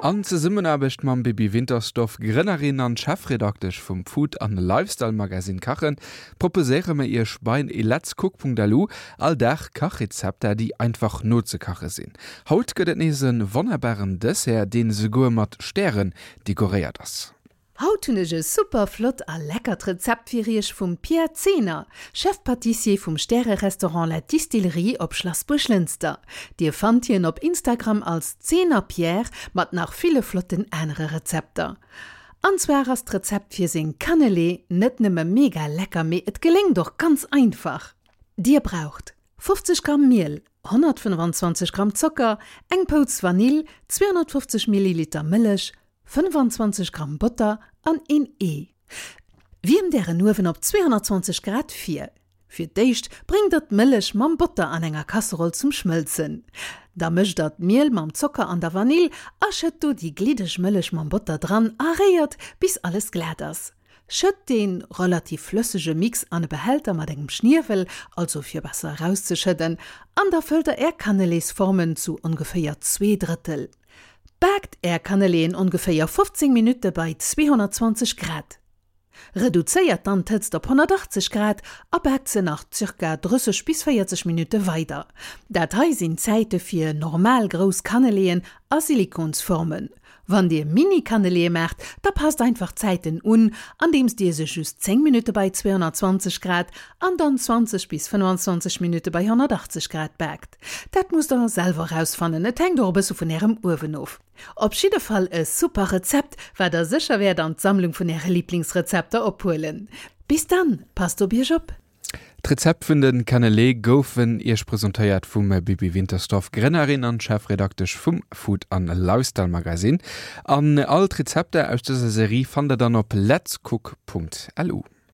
An Zesummenaarbecht mam Bibi Wintersdorf, Grënnerin an Chefredaktesch vum Food an Lifestyle Magazine Kachen, proposéiere mer iech bei letscook.lu all Dag Kachrezepter, déi einfach nozekache sinn. Haut gëtt et nees e wonnerbaren Dessert, deen esouguer mat Stären dekoréiert ass. Haut hunn ech e super flott a leckert Rezept fir iech vum Pierre Zehner, Chef Pâtissier vum Stäre-Restaurant La Distillerie op Schlass Buerglënster. Dir fannt hien op Instagram als Zehner Pierre mat nach ville flotten anere Rezepter. An zwar ass d'Rezept fir seng Cannelée net nëmme mega lecker mee et geléngt och ganz einfach. Dir braucht 50 Gramm Miel, 125 Gramm Zocker, eng Pouz Vanill, 250 Milliliter Mëllech, 25 Gramm Botter an een Ee. Wiermt ären Uewen op 220 Grad vir. Fir d'éischt bréngt der d'Mëllech mam Botter an enger Kasseroll zum Schmëlzen. Da mëscht der d'Miel mam Zocker an der Vanill a schëtt do déi gliddeg Mëllech mam Botter dran a réiert bis alles glat ass. Schëtt dee relativ flëssege Mix an e Behälter mat engem Schniewel, also fir besser erauszeschëdden, an da fëllt der är Cannelésformen zu ongeféier zweedrëttel. Baakt är Cannelléen ongeféier 15 Minutte bei 220 Grad. Reduzéiert dann d'Hëtzt op 180 Grad a baakt se nach ca. 30 bis 40 Minutte weider. Dat hei sinn d'Zäite fir normal grouss Cannelléen a Silikonsformen. Wann dir Mini-Cannelléë maacht, da passt einfach d'Zäiten un, andeems dir se just 10 Minutte bei 220 Grad an dann 20 bis 25 Minutte bei 180 Grad baakt. Dat musst der selwer rausfannen, et hänkt och e bësse vun ärem Uewen of. Op jidde Fall e super Rezept, wat der sécher wäert an d'Sammlung vun äre Liblingsrezepter ophuelen. Bis dann, passt op iech op! D'Rezept vun de Cannelé goufen iech presentéiert vum Bibi Wintersdorf, Grënnerin an Chefredaktesch vum Food an Lifestyle Magazine. An all d'Rezepter aus dëser Serie fannt der dann op letscook.lu.